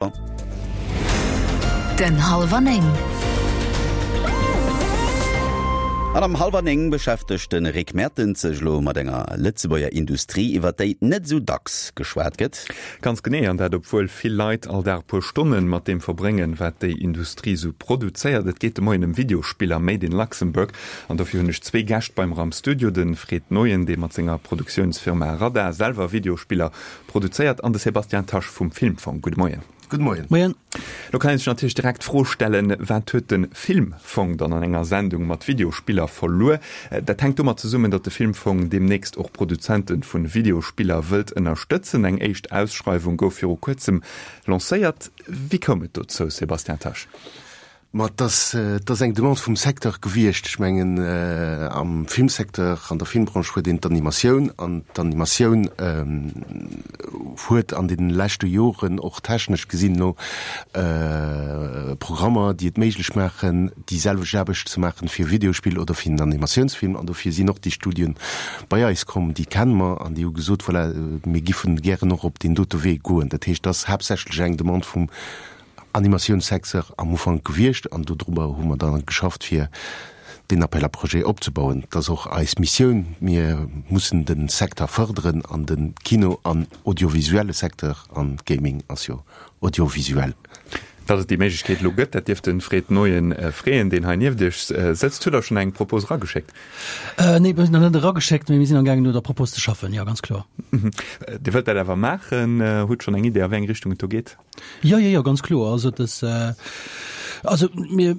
Den Hallwer 9. An am Hallwer 9 beschäftegt de Rick Mertens sech elo mat enger Lëtzebuerger Industrie, iwwer déi net esou dacks geschwat gëtt. Ganz genee, an dat obwuel vill Leit all Dag e puer Stonne mat deem verbréngen, wat déi Industrie esou produzéiert. Et geet de Moien ëm Videospiller made in Luxembourg an dofir hunn ech zwee Gäscht bei mer am Studio, de Fred Neuen, dee mat senger Produktiounsfirma Radar selwer Videospiller Produzéiert an de Sébastien Tasch vum Filmfong. Gudde Moien. Gudde Moien. Moien. Lo kann ee sech natierlech direkt d'Fro stellen, Wat huet de Filmfong dann an enger Sendung mat Videospiller verluer? Dat hänkt domat zesummen, datt de Filmfong deemnächst och Produzente vu Videospiller wëllt ënnerstëtzen. Eng éischt Ausschreiwung gouf viru kuerzem lancéiert. Wéi koum et dozou, Sébastien Tasch? Ma et ass, et ass eng Demande vum Secteur gewiescht. Ech mengen, am Filmsecteur, an der Filmbranche huet een d'Animatioun, an d'Animatioun huet an deene leschte Joren och technesch gesinn elo Programmer, déi et méiglech maachen, déi selwecht Aarbecht ze maachen fir e Videospill oder fir en Animatiounsfilm. An dofir sinn och déi Studien bei eis komm, déi kenne mer, an déi hu gesot, voilà, mir giffen gären och op deen dote Wee goen. Dat heescht, et ass haaptsächlech eng Demande vum Animatiounssecteur am Ufank gewiescht an dodrobber hu mer dann geschafft fir deen Appel à projets opzebauen. Et ass och eis Missioun, mir mussen de Secteur fërderen an de Kino an audiovisuelle Secteur, an Gaming ass jo audiovisuell. Datt et déi Méiglechkeet elo gëtt, dat dierft de Fred Neuen freeën, deen hei nieft Iech sëtzt. Hutt Der schonn eng Propos erageschéckt? Nee, mir hunn nach net erageschéckt, mee mir sinn amgaangen no der Propos ze schaffen, jo, ganz kloer. Dir wëllt dat awer maachen. Hutt schonn eng Idee a wéi eng Richtung et do geet? Jo, jo, jo, ganz kloer. Also das, äh, also mir,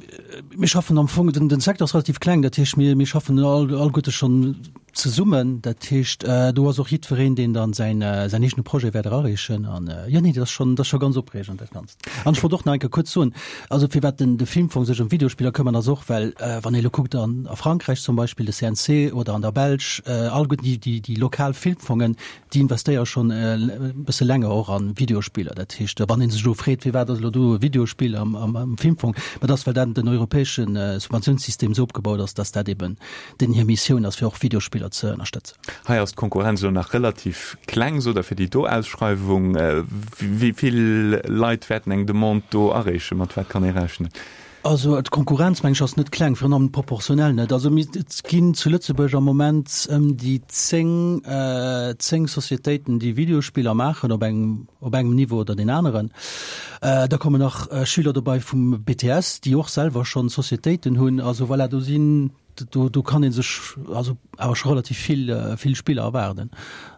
mir schaffen am Fong, den, den Secteur ass relativ kleng, dat heescht mir, mir schaffen all, alleguerte schonn zesummen. Dat heescht, äh, do ass och jiddwereen, deen dann säin, äh, säin eegene Projet wäert erareechen. An äh, jo, nee, dat ass schonn, dat ass scho ganz opreegend, dat Ganzt. An ech wollt och nach eng Kéier kuerz soen, also firwat den, de Filmfong sech ëm Videospiller këmmert, ass och, well äh, wann ee elo kuckt an, a Frankräich zum Beispill, de CNC oder an der Belsch, äh, alleguerten déi, déi, déi lokal Filmfongen, Déi investéiere schonn e bësse länger och a Videospiller. Dat heescht, wann ee sech elo freet, firwat ass elo do e Videospill am Filmfong, ma dat ass, well dat den europäesche Subventiounssystem esou opgebaut ass, datt dat eben deenen hir Missioun ass, fir och Videospiller ze ënnerstëtzen. Hei ass d'Konkurrenz elo nach relativ kleng, sot Der, fir déi do Ausschreiwung. Wéi vill Leit wäerten eng Demande do areechen? Mat wat kann ee rechnen? Also d'Konkurrenz, meng ech, ass net kleng, virun allem proportionell net. Also mir, et ginn zu Lëtzebuerg am Moment ëm déi 10, 10 Societéiten, déi Videospiller maachen op engem, op engem Niveau oder deen aneren. Da kommen nach Schüler dobei vum BTS, déi och selwer schonn Societéiten hunn. Also voilà, do sinn, do, do kann ee sech also awer scho relativ vill, vill Spiller erwaarden.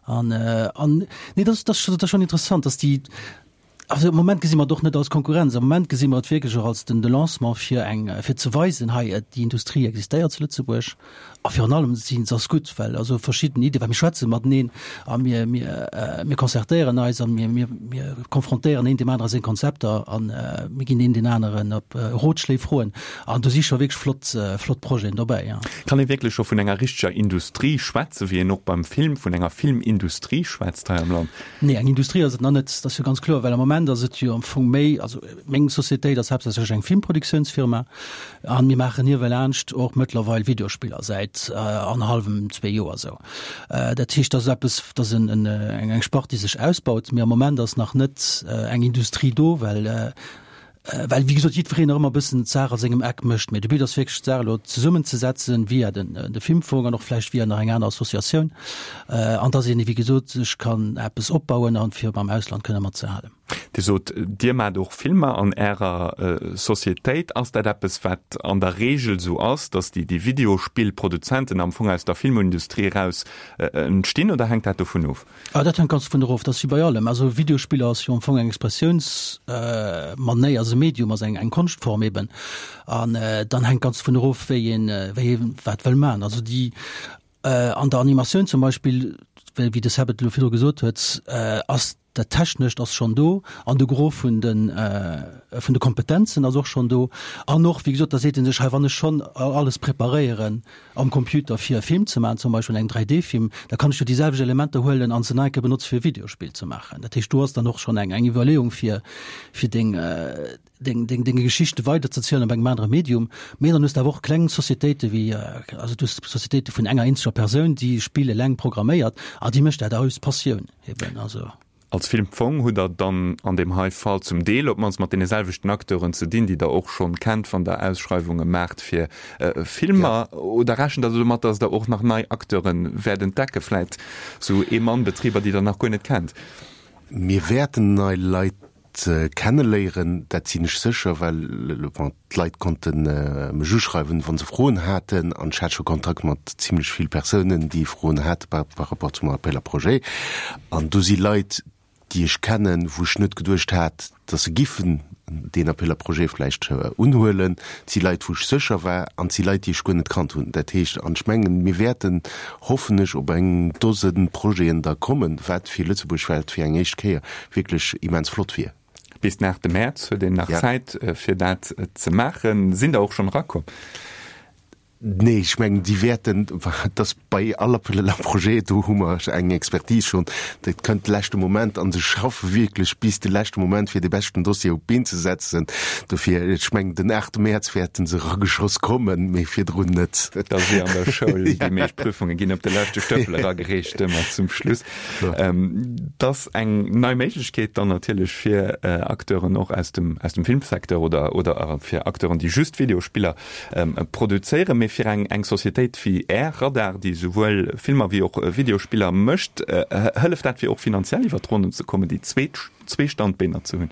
An, an nee, dat ass, dat ass schonn interessant, dass déi, Also am Moment gesi mer et och net als Konkurrenz. Am Moment gesi mer et wierklech och als den de Lancement fir eng, fir ze weisen, hei déi Industrie existéiert zu Lëtzebuerg. A virun allem si se ass gutt, well also verschidden Iddien, well mir schwätze mateneen a mir, mir, mir concertéieren eis a mir, mir, mir konfrontéieren een deem anere seng Konzepter a mir ginn een deen aneren op Rotschléi froen. An do si scho wierklech flott, flott Projeten dobäi, jo. Kann ee wierklech scho vun enger richteger Industrie schwätzen, wéi een och beim Film vun enger Filmindustrie schwätzt hei am Land? Nee, eng Industrie ass et nach net, dat ass jo ganz kloer, well am Moment ass et jo am Fong méi, also meng Societéit ass haaptsächlech eng Filmproduktiounsfirma a mir maachen niewelaanscht och mëttlerweil Videospiller säit annerhallwem, zwee Joer esou. Dat heescht, dat ass eppes, dat ass en, eng Spart, déi sech ausbaut, mee am Moment ass nach net eng Industrie do, well Well, wéi gesot, jiddwereen nach ëmmer e bëssen d'Saach a sengem Eck mécht. Mee de But ass wierklech, d'Saach elo zesummenzesetzen via den, de Filmfong an och vläicht via nach eng aner Associatioun, an dass een, wéi gesot, sech kann eppes opbauen a fir mam Ausland kënne matzehalen. Dir sot, Dir maacht och Filmer an Ärer Societéit. Ass dat eppes, wat an der Reegel esou ass, dass déi, déi Videospillproduzenten am Fong aus der Filmindustrie eraus entstinn, oder hänkt dat dovun of? Ah, dat hänkt ganz dovun erof. Dat ass wéi bei allem. Also Videospiller ass jo am Fong eng Expressiounsmanéier, ass e Medium, ass eng Konschtform eben. An dann hänkt ganz dovun erof, wéi een, wéi ee wat wëll maachen. Also déi an der Animatioun zum Beispill, wéi de Seb et elo virdru gesot huet, ass dat Technescht ass schonn do an de Gros vun de vun de Kompetenzen ass och schonn do. An och, wéi gesot, da seet ee sech, hei wann ech schonn alles preparéieren, am Computer fir e Film ze maachen, zum Beispill eng 3D-Film, da kann ech jo déi selwecht Elementer huelen an se nach eng Kéier benotze fir e Videospill ze maachen. Dat heescht, do ass dann och schonn eng eng Iwwerleeung fir fir deng deng deng deng Geschichte weiderzezielen op engem anere Medium. Mee dann hues de awer och kleng Societéite wéi also du hues Societéite vun enger eenzeger Persoun, déi e Spill eleng programméiert a déi mécht dat aus Passioun eben. Also. Als Filmfong hutt Der dann an deem hei Fall zum Deel op d'mannst mat deene selwechten Acteuren ze dinn, déi Der och schonn kennt, wann Der Ausschreiwunge maacht fir Filmer. Oder rechent Der domat, datt Der och nach nei Acteure wäert entdecke, vläit sou Ee-Mann-Betriber, déi Der nach guer net kennt? Mir wäerten nei Leit kenneléieren, dat sinn ech sécher, well bon, d'Leit konnte mech uschreiwen, wa se Froen haten, an ech hat scho Kontakt mat zimlech vill Persounen, déi Froen hate par rapport zum Appel à projets. An do si Leit, déi ech kennen, wou ech net geduecht hat, datt se giffen deen Appel à projets vläicht unhuelen. Et si Leit, wou ech sécher war, an et si Leit, déi ech guer net kannt hunn. Dat heescht, an ech mengen, mir wäerten, hoffen ech, op eng Dose Projeten da kommen, wat fir Lëtzebuerg, wat fir eng éischt Kéier wierklech immens flott wier. Bis den 8 Mäerz huet een nach Zäit fir dat ze maachen. Sinn der och schonn erakomm? Nee, ech mengen déi wäerten, et ass bei all Appel à projets, do hu mer eng Expertise schonn, dat kënnt de leschte Moment a se schaffe wierklech bis de leschte Moment fir dee beschten Dossier op d'Been ze setzen. Dofir, ech mengen den 8 Mäerz wäerte se erageschoss kommen, mee virdrun net. Et ass wéi an der Schoul, déi meescht Prüfunge ginn op de leschte Stëppel eragereecht, ëmmer zum Schluss. Et ass eng nei Méiglechkeet dann natierlech fir Acteuren och aus dem, aus dem Filmsecteur oder, oder fir Acteuren, déi just Videospiller produzéieren. Mee fir eng, eng Societéit wéi Är, Radar, déi souwuel Filmer wéi och Videospiller mécht, hëlleft dat fir och finanziell iwwer d'Ronnen ze kommen, déi zweet, zwee Standbeener ze hunn?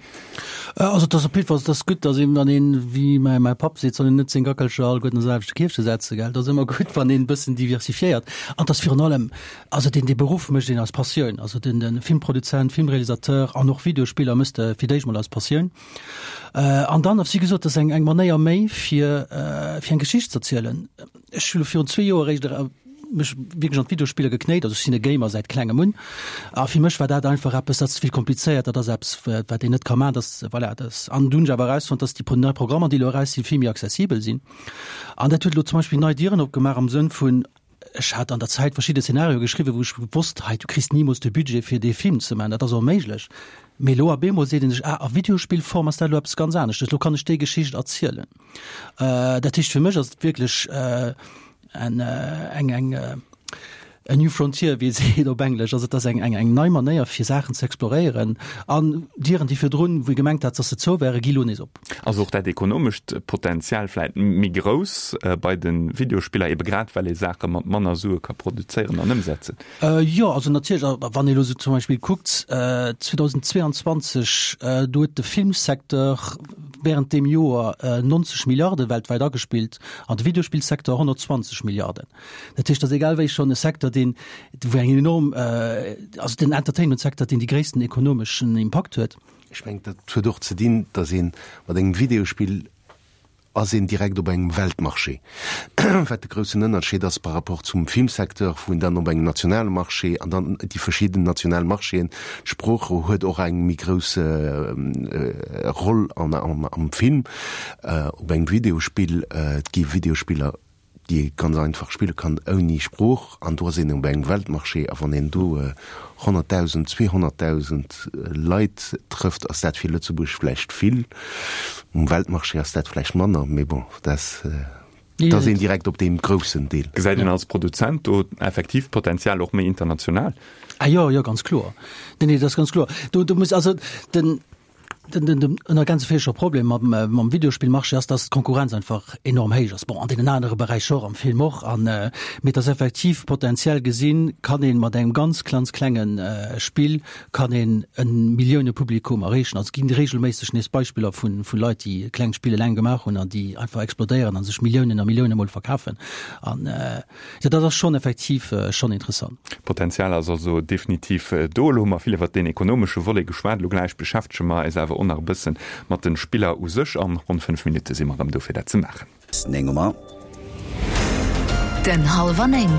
Also et ass op jiddwer Fall, et ass gutt, datt een, wann een, wéi mäi, mäi Papp seet, soll een net seng Gackelcher alleguerten an d'selwechte Kierfche setzen, gell. Et ass ëmmer gutt, wann een e bëssen diversifiéiert. An et ass virun allem, Also deen dee Beruff mécht een aus Passioun. Also den den Filmproduzent, Filmrealisateur an och Videospiller mëss de fir d'éischt mol aus Passioun. An dann, wéi gesot, dat ass eng eng Manéier méi fir fir eng Geschicht z'erzielen. Ech hu lo virun zwee Joer eréischt mech wierklech an d'Videospiller geknéit. Also ech sinn e Gamer säit klengem un. A fir mech war dat einfach eppes, dat ass ze vill komplizéiert, dat ass eppes wat een net ka maachen, dat voilà, dat. An du hunn ech awer erausfonnt, dass déi nei Programmer déi elo eraus sinn, vill méi accessibel sinn. An dat huet elo zum Beispill nei Dieren opgemaach am Sënn vun, Ech hat an der Zäit verschidde Szenarioe geschriwwen, wou ech wosst, hei, du kriss nimools de Budget fir dee Film ze maachen, dat ass onméiglech. Mee elo op eemol seet ee sech, ah, a Videospillform ass dat elo eppes ganz aneschtes, elo kann ech déi Geschicht erzielen. Dat heescht, fir mech ass et wierklech en, eng, eng, a new frontier, wéi ee seet op Englesch. Also et ass eng, eng, eng nei Manéier fir Saachen ze exploréieren an Dieren, déi virdrun, wou ee gemengt hat, dass se zou wären, gi lo nees op. Ass och dat ekonomescht Potenzial vläit méi grouss bei de Videospiller, ebe grad well ee Saache mat manner Sue ka produzéieren an ëmsetzen? Jo, also natierlech. Wann ee elo sou zum Beispill kuckt, 2022, do huet de Filmsecteur wärend deem Joer 90 Milliarde weltwäit agespillt an de Videospillsecteur 120 Milliarden. Dat heescht, dat ass egal wéi schonn e Secteur, deen, wou eng enorm, also den Entertainment-Secteur, deen déi gréissten ekonomeschen Impakt huet. Ech mengen, dat huet och ze dinn, datt ee mat engem Videospill ass een direkt op engem Weltmarché, wat de groussen Ënnerscheed ass par rapport zum Filmsecteur, wou een dann op engem nationale Marché an dann déi verschidden national Marchéen, d'Sprooch huet och eng méi grouss Roll am Film, op engem Videospill, et gi Videospiller, déi ee ganz einfach spille kann ouni Sprooch, an do ass een op engem Weltmarché, a wann een do 100.000, 200.000 Leit trëfft, ass dat fir Lëtzebuerg vläicht vill, um Weltmarché ass dat vläicht manner, mee bon, dat ass een direkt op deem groussen Deel. Gesäit een als Produzent do effektiv d'Potenzial och méi international? Ah jo, jo, ganz kloer. Nee, nee, dat ass ganz kloer. Do, do muss also den. Den, den, den ënner Problem mam, mam Videospillmarché ass, dass d'Konkurrenz einfach enorm héich ass. Bon, an deenen anere Beräicher och, am Film och. An, äh, mee dass effektiv potenziell gesinn, kann een mat engem ganz ganz klengen äh, Spill kann een en Milliounepublikum erreechen. Also et ginn regelméisseg nees Beispiller vun, vun Leit, déi kleng Spill eleng gemaach hunn an déi einfach explodéieren an sech Milliounen a Millioune mol verkafen. An, äh, Jo, dat ass schonn effektiv schonn interessant. D'Potenzial ass also definitiv do. Elo hu mer vill iwwert deen ekonomesche Volet geschwat. Elo gläich beschäftege mer eis awer och nach e bësse mat de Spiller u sech. An ronn 5 Minutte si mer erëm do fir dat ze maachen. 9 hu mer. Den hallwer 9.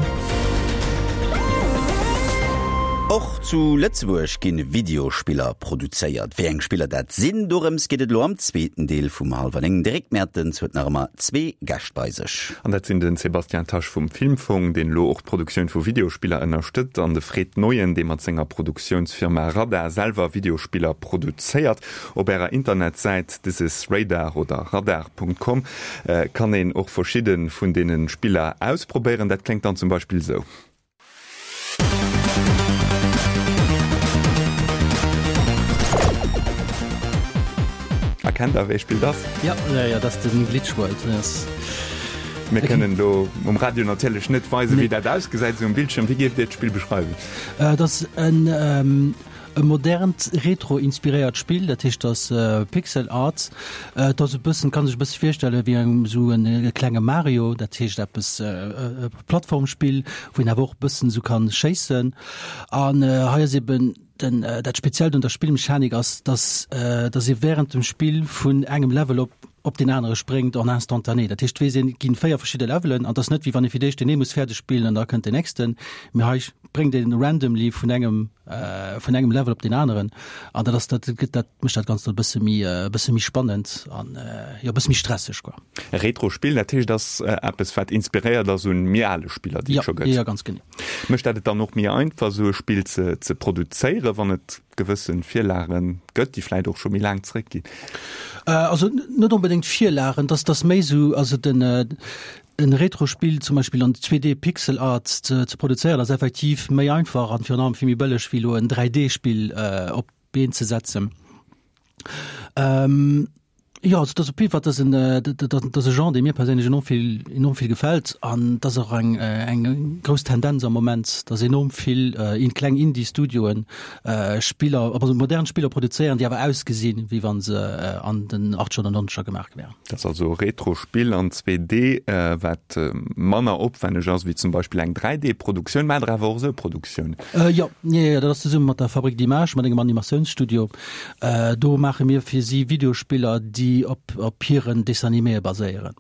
Och zu Lëtzebuerg ginn Videospiller produzéiert. Wéi eng Spiller dat sinn, dorëms geet et elo am zweeten Deel vum Hallwer 9. De Rick Mertens huet nach ëmmer zwee Gäscht bei sech. An dat sinn den Sébastien Tasch vum Filmfong, deen elo och d'Produktioun vu Videospiller ënnerstëtzt, an de Fred Neuen, dee mat senger Produktiounsfirma Radar selwer Videospiller produzéiert. Op ärer Internetsäit thisisradar oder radar.com kann een och verschidde vun deene Spiller ausprobéieren. Dat kléngt dann zum Beispill esou. Erkennt der wéi Spill dat ass? Jo, jo, jo, dat ass den Glitch World. Dat ass. Mir kënnen do um Radio natierlech net weisen, wéi dat ausgesäit esou um Bildschirm. Wéi géift Dir d'Spill beschreiwen? Dat ass en e modernt retro-inspiréiert Spill, dat heescht dat ass Pixel Art. Et ass e bëssen, kann sech e bësse virstelle wéi eng esou en e klenge Mario, dat heescht eppes e Plattformspill, wou een awer och e bëssen esou kann schéissen. An hei ass eben Den, dat Speziellt un der Spillmechanik ass, dass, dass ee während dem Spill vun engem Level op, op deen anere spréngt en instantané. Dat heescht, weess een, et ginn 4 verschidde Levelen an et ass net wéi wann ee fir d'éischt deen ee muss fäerdeg spillen an da kënnt deen nächsten, mee hei spréngt ee randomly vun engem, vun engem Level op deen aneren an dat ass, dat gëtt, dat mécht dat Ganzt e bësse méi, e bësse méi spannend an, jo, e bësse méi stresseg quoi. E Retro-Spill, dat heescht, ass eppes wat inspiréiert ass un méi ale Spiller, déi et scho gëtt? Jo, jo, ganz genee. Mécht dat et dann och méi einfach, esou e Spill ze ze produzéieren, wann et gewësse Virlage gëtt, déi vläicht och scho méi laang zeréckginn? Also net onbedéngt Virlagen, dass dass méi esou, also den en Retro-Spill zum Beispill an 2D Pixel Art ze ze produzéieren, ass effektiv méi einfach an virun allem vill méi bëlleg wéi elo en 3D-Spill op d'Been ze setzen. Ähm, jo, also dat ass op jidde Fall, dat ass en, dat ass e Genre, dee mir perséinlech enorm vill, enorm vill gefält. An dat ass och eng, eng grouss Tendenz am Moment, dass enorm vill in kleng Indie-Studioen Spiller, also modern Spiller produzéieren, déi awer ausgesinn, wéi wa se an den Achtzeger oder Nonzeger gemaach gi wären. Dat ass also e Retro-Spill an 2D, wat manner opwänneg ass wéi zum Beispill eng 3D-Produktioun. Maacht Der awer och esou Produktiounen? Jo, jo, jo, dat ass zesumme mat der Fabrique d'Images, mat engem Animatiounsstudio. Do maache mir fir si Videospiller, déi op op hiren Dessin-animéë baséieren.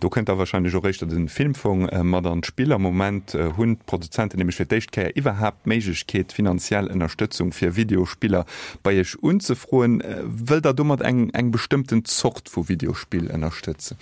Do kënnt da wahrscheinlech och éischter de Filmfong mat an d'Spill. Am Moment hunn d'Produzenten nämlech fir d'éischt Kéier iwwerhaapt d'Méiglechkeet, finanziell Ënnerstëtzung fir Videospiller bei iech unzefroen. Wëllt der domat eng eng bestëmmten Zort vu Videospill ënnerstëtzen?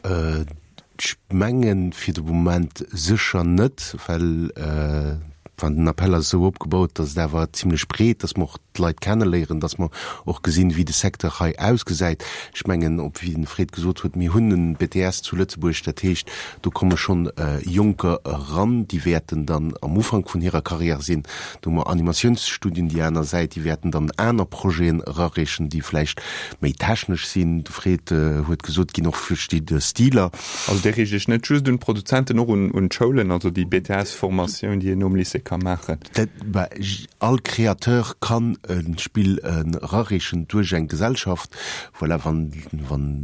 Ech mengen fir de Moment sécher net, well wann den Appell ass esou opgebaut, datt et awer zimlech breet, datt mer och d'Leit kenneléieren, datt mer och gesinn, wéi de Secteur hei ausgesäit. Ech mengen, op wéi den Fred gesot huet, mir hunn en BTS zu Lëtzebuerg, dat heescht, do komme schonn Jonker eran, déi wäerten dann am Ufank vun hirer Carrière sinn. Do hu mer Animatiounsstudien déi aner Säit, déi wäerten dann aner Projeten erareechen, déi vläicht méi technesch sinn. De Fred huet gesot, et ginn och verschidde Stiler. Also Dir riicht Iech net just un d'Produzenten, och un d'Schoulen, also déi BTS-Formatioun, déi een nom Lycée ka maachen? All Créateur kann e Spill erareechen duerch eng Gesellschaft. Voilà, wann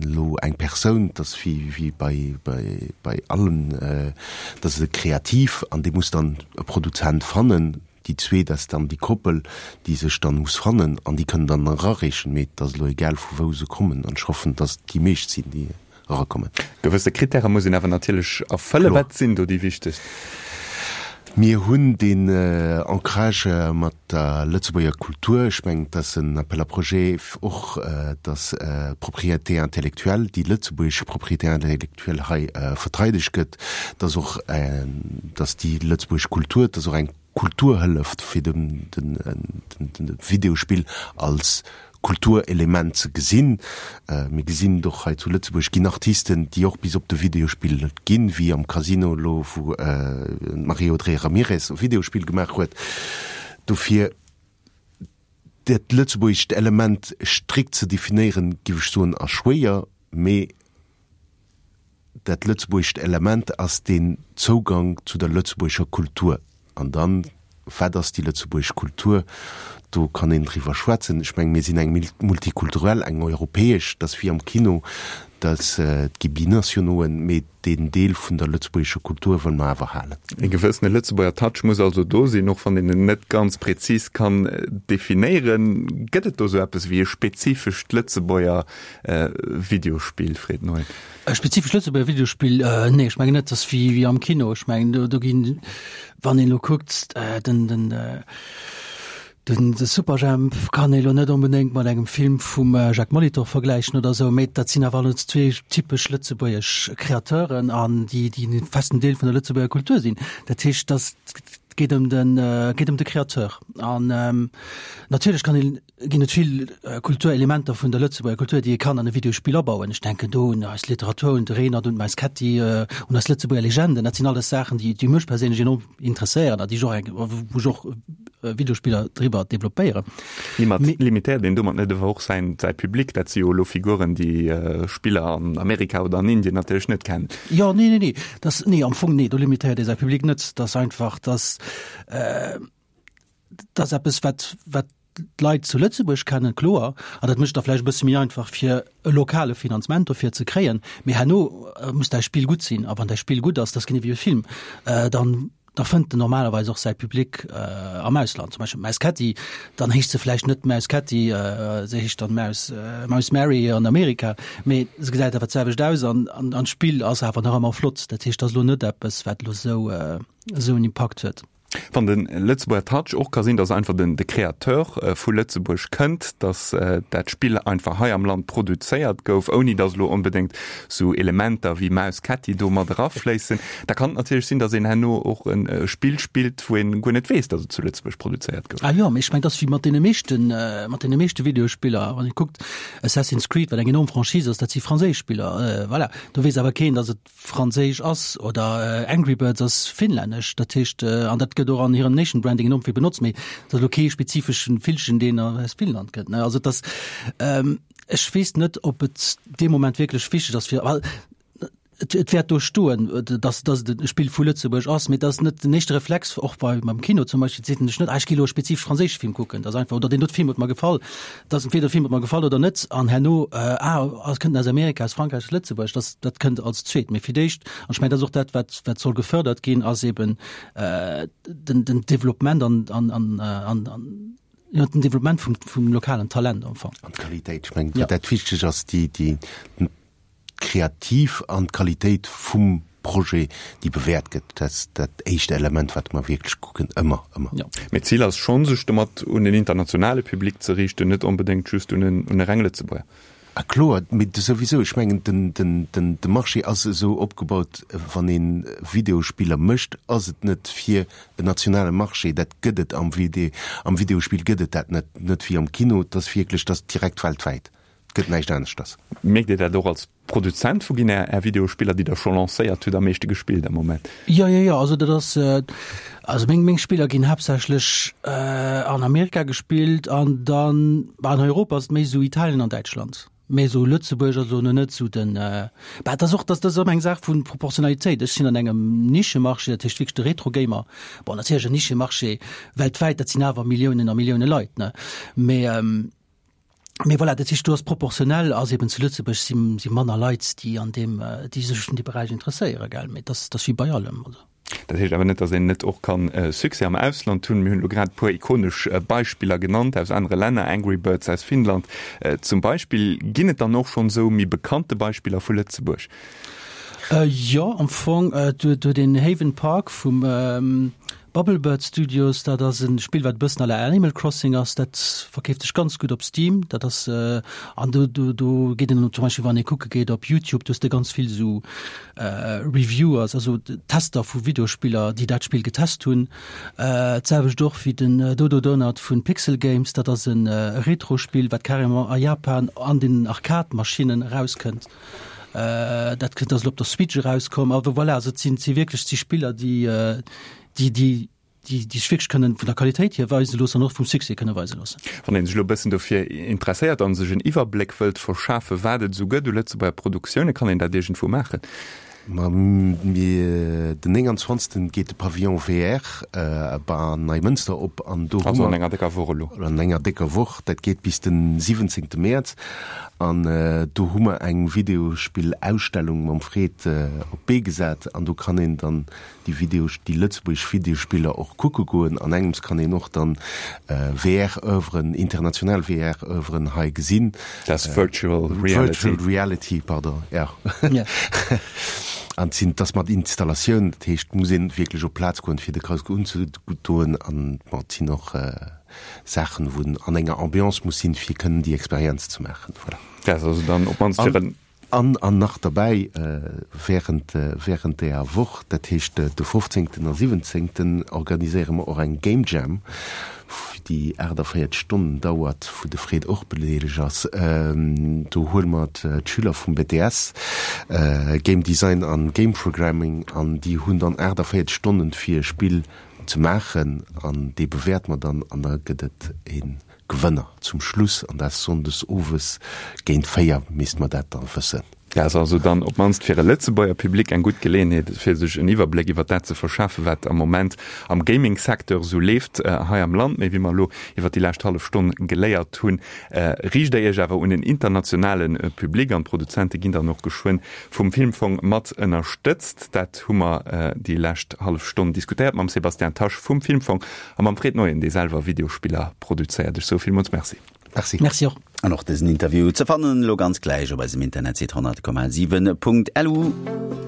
elo eng Persoun, dat ass wéi bei allem, dat ass e Kreativ an dee muss dann e Produzent fannen. Déi zweet ass dann déi Koppel, déi sech dann muss fannen an déi kënnen dann erareechen. Mee et ass elo egal vu wou se kommen an ech hoffen, dass et déi meescht sinn, déi erakommen. Gewësse Krittäre muss een awer natierlech erfëllen. Wat sinn do déi wichtegst? Mir hunn deen Ancrage mat der Lëtzebuerger Kultur. Ech mengen, et ass en Appel à projets och, dass d'Propriété intellectuelle, déi lëtzebuergesch Propriété intellectuelle hei verteidegt gëtt, dass och, dass déi lëtzebuergesch Kultur, dass och eng Kulturhëllef fir de Videospill als Kulturelement ze gesinn. Mir gesinn et och hei zu Lëtzebuerg ginn Artisten, déi och bis op de Videospill ginn, wéi am Casino elo, wou d'Marie-Audrey Ramirez e Videospill gemaach huet. Dofir dat lëtzebuergescht Element strikt ze definéieren, géif ech soen, ass schwéier, mee Dat lëtzebuergescht Element ass deen Zougang zu der lëtzebuergescher Kultur. An dann, wat ass déi lëtzebuergesch Kultur? Do kann een driwwer schwätzen. Ech mengen, mir sinn eng multikulturell, eng europäesch, dat ass wéi am Kino, dat et gi Binationoen, mee deen Deel vun der lëtzebuergescher Kultur wëlle mer awer halen. E gewëssene Lëtzebuerger Touch muss also do sinn, och wann een en net ganz prezis kann definéieren. Gëtt et do sou eppes wéi e spezifescht Lëtzebuerger Videospill, Fred Neuen? E spezifescht Lëtzebuerger Videospill? Nee, ech mengen net. Dat ass wéi, wéi am Kino. Ech mengen, do, do ginn, wann een elo kuckt, den, den, den, de Superjhemp kann ee lo net onbedéngt mat engem Film vum Jacques Molitor vergläichen oder esou, mee dat sinn awer alles zwee typesch lëtzebuergesch Kreateuren an déi, déi e festen Deel vun der Lëtzebuerger Kultur sinn. Dat heescht, dass. Et geet ëm den, geet ëm de Créateur. An natierlech kann een, ginn et vill Kulturelementer vun der Lëtzebuerger Kultur, déi ee kann an e Videospill abauen. Ech denken do un eis Literatur, un de Renert, un d'Maus Ketti, un eis Lëtzebuerger Legenden. Dat sinn alles Saachen, déi, déi mech perséinlech enorm interesséieren a déi ech och eng, wou ech och Videospiller driwwer developpéieren. Limitéiert een domat net awer och säin, säi Public? Dat si jo elo Figuren, déi Spiller an Amerika oder an Indien natierlech net kennen. Jo, nee, nee, nee. Dat, nee, am Fong, nee, do limitéiert ee säi Public net. Dat ass einfach, dass, dat ass eppes, wat, wat d'Leit zu Lëtzebuerg kennen, kloer, an dat mécht da vläicht e bësse méi einfach, fir e lokale Finanzement dofir ze kréien. Mee herno muss däi Spill gutt sinn. A wann däi Spill gutt ass, dat ass genee wéi e Film, dann da fënnt en normalerweis och säi Public am Ausland. Zum Beispill d'Maus Ketti, dann heescht se vläicht net Maus Ketti, se heescht dann Maus, Maus Mary an Amerika, mee se gesäit awer d'selwecht aus an, an, an d'Spill ass awer nach ëmmer flott. Dat heescht, dat ass elo net eppes, wat elo esou, esou en Impakt huet. Wann de Lëtzebuerger Touch och ka sinn, datt einfach den de Créateur vu Lëtzebuerg kënnt, datt dat Spill einfach hei am Land produzéiert gouf, ouni datt elo onbedéngt sou Elementer wéi Maus Ketti do mat erafléissen, da kann et natierlech sinn, datt een herno och e Spill spillt, wou een guer net weess, datt et zu Lëtzebuerg produzéiert gouf. Ah jo, mee ech mengen, et ass wéi mat deene meeschten, mat deene meeschte Videospiller. Wann ee kuckt, Assassin's Creed, wat eng enorm Franchise ass, dat si franséisch Spiller, voilà. Do weess awer keen, datt et Franséisch ass oder Angry Birds ass finnlännesch, dat heescht, an dat gëtt och an hirem Nation Branding enorm vill benotzt, mee et ass elo kee spezifeschen Villchen, deen aus Finnland kënnt, ne. Also et ass, ech weess net, ob et dee Moment wierklech wichteg ass fir, well et et wäert do stoen, datt datt et e Spill vu Lëtzebuerg ass, mee et ass net den éischte Reflex, och bei beim Kino zum Beispill, seet een sech net, ah ech gi elo e spezifesch franséische Film kucken, dat ass einfach, oder deen dote Film huet mer gefall. Dass entweder de Film huet mer gefall oder net an herno ah ass kënnt aus Amerika, aus Frankräich, aus Lëtzebuerg, das dat kënnt als zweet. Mee fir d'éischt, an ech mengen dat ass och dat wat wat soll gefördert ginn, ass eben den den Developpement an an an an an jo den Developpement vum vum lokalen Talent am Fong. An d'Qualitéit, ech mengen wat dat wichteg ass, déi déi d'Kreativ an d'Qualitéit vum Projet, déi bewäert gëtt, dat ass dat éischt Element, wat mer wierklech kucken, ëmmer, ëmmer. Mee d'Zil ass schonn, sech domat un en internationale Public ze riichten, net onbedéngt just un e reng Lëtzebuerger. A kloer, mee souwisou, ech mengen, de Marché ass esou opgebaut, wann ee Videospiller mécht, ass et net fir en nationale Marché, dat gëtt et am Videospill gëtt et dat net, net wéi am Kino, et ass wierklech, et ass direkt weltwäit. Et gëtt näischt aneschters. Mierkt Dir dat och als Produzent? Wou ginn Är Videospiller, déi Der scho lancéiert hutt, am meeschte gespillt am Moment? Jo, jo, jo. Also dat ass, also meng, meng Spiller ginn haaptsächlech an Amerika gespillt an dann, bah, an Europa ass et méi esou Italien an Däitschland. Mee esou Lëtzebuerg ass elo net esou den, bah, et ass och, dat ass ëmmer eng Saach vu Proportionalitéit. Ech sinn an engem Nischemarché, dat heescht wierklech de Retro-Gamer. Bon, natierlech en Nischemarché weltwäit, dat sinn awer Milliounen a Millioune Leit, ne? Mee, Mee voilà, dat heescht, do ass proportionell ass eben zu Lëtzebuerg si si manner Leit, déi an deem, déi sech un dee Beräich interesséieren, gell. Mee dat ass wéi bei allem, also. Dat heescht awer net, datt een net och kann Succès am Ausland hunn. Mir hunn elo grad e puer ikonesch Beispiller genannt aus anere Länner, Angry Birds aus Finnland zum Beispill. Ginn et dann och schonn esou méi bekannte Beispiller vu Lëtzebuerg? Jo, am Fong, do huet een Haven Park vum Bubblebird Studios, dat ass e Spill, wat e bëssen à la Animal Crossing ass. Dat verkeeft sech ganz gutt op Steam. Dat ass, an do, do, do geet een zum Beispill, wann ee kucke geet op YouTube, do hues de ganz vill esou Reviewers, also Tester vu Videospiller, déi dat Spill getest hunn. D'selwecht och wéi den Dodo Donut vu Pixel Games, dat ass e Retro-Spill, wat carrément a Japan an den Arcade-Maschinnen erauskënnt. Dat kënnt, ass elo op der Switch erauskomm. Awer voilà, also et sinn, et si wierklech, et si Spiller, déi, déi, déi, déi, déi sech wierklech kënnen vun der Qualitéit hier weise loossen an och vum Succès kënne weise loossen. Wann ee sech elo e bëssen dofir interesséiert a sech en Iwwerbléck wëllt verschafen, wat et esou gëtt u Lëtzebuerger Produktioune, kann een dat iergendwou maachen? Ma mir, den 29. geet de Pavillon VR an Neimënster op an do hu mer. Also an enger décker Woch elo. An enger décker Woch, dat geet bis den 17. Mäerz. An do hu mer eng Videospill-Ausstellung mam Fred op d'Bee gesat an do kann een dann déi Video, déi lëtzebuergesch Videospiller och kucke goen. An engems kann een och dann VR-Oeuvren, international VR-Oeuvren hei gesinn. Dat ass Virtual Reality. Virtual Reality, pardon, ja. An et sinn, et ass mat Installatioun, dat heescht, et muss een wierklech op d'Plaz goen, fir de Casque unzedoen. An bon, et sinn och Saachen, wou en an enger Ambiance muss sinn, fir kënnen déi Experienz ze maachen. Voilà. Dat ass also dann op d'mannst fir en. An an nach derbäi, während während deeër Woch, dat heescht de 15. a 17. organiséiere mer och eng Game Jam, déi 48 Stonnen dauert, wou de Fred och bedeelegt ass. Do huele mer d'Schüler vum BTS, Game Design an Game Programming, an déi hunn dann 48 Stonnen fir e Spill ze maachen an dee bewäerte mer dann an da gëtt et e Gewënner zum Schluss an dat Sonndes owes géint 4 misst mer dat dann wëssen. Dat ass also dann op d'mannst fir e Lëtzebuerger Public eng gutt Geleeënheet, fir sech en Iwwerbléck iwwer dat ze verschafen, wat am Moment am Gaming-Secteur esou leeft hei am Land. Mee wéi mer elo iwwer déi lescht hallef Stonn geléiert hunn, riicht Der Iech awer un en internationale Public an d'Produzente ginn dann och geschwënn vum Filmfong mat ënnerstëtzt. Dat hu mer déi lescht hallef Stonn diskutéiert mam Sébastien Tasch vum Filmfong A mam Fred Neuen, dee selwer Videospiller produzéiert. Ech soe villmools Merci. Merci. Merci och. An och dësen Interview ze fannen elo ganz gläich op eisem Internetsite 100,7.lu.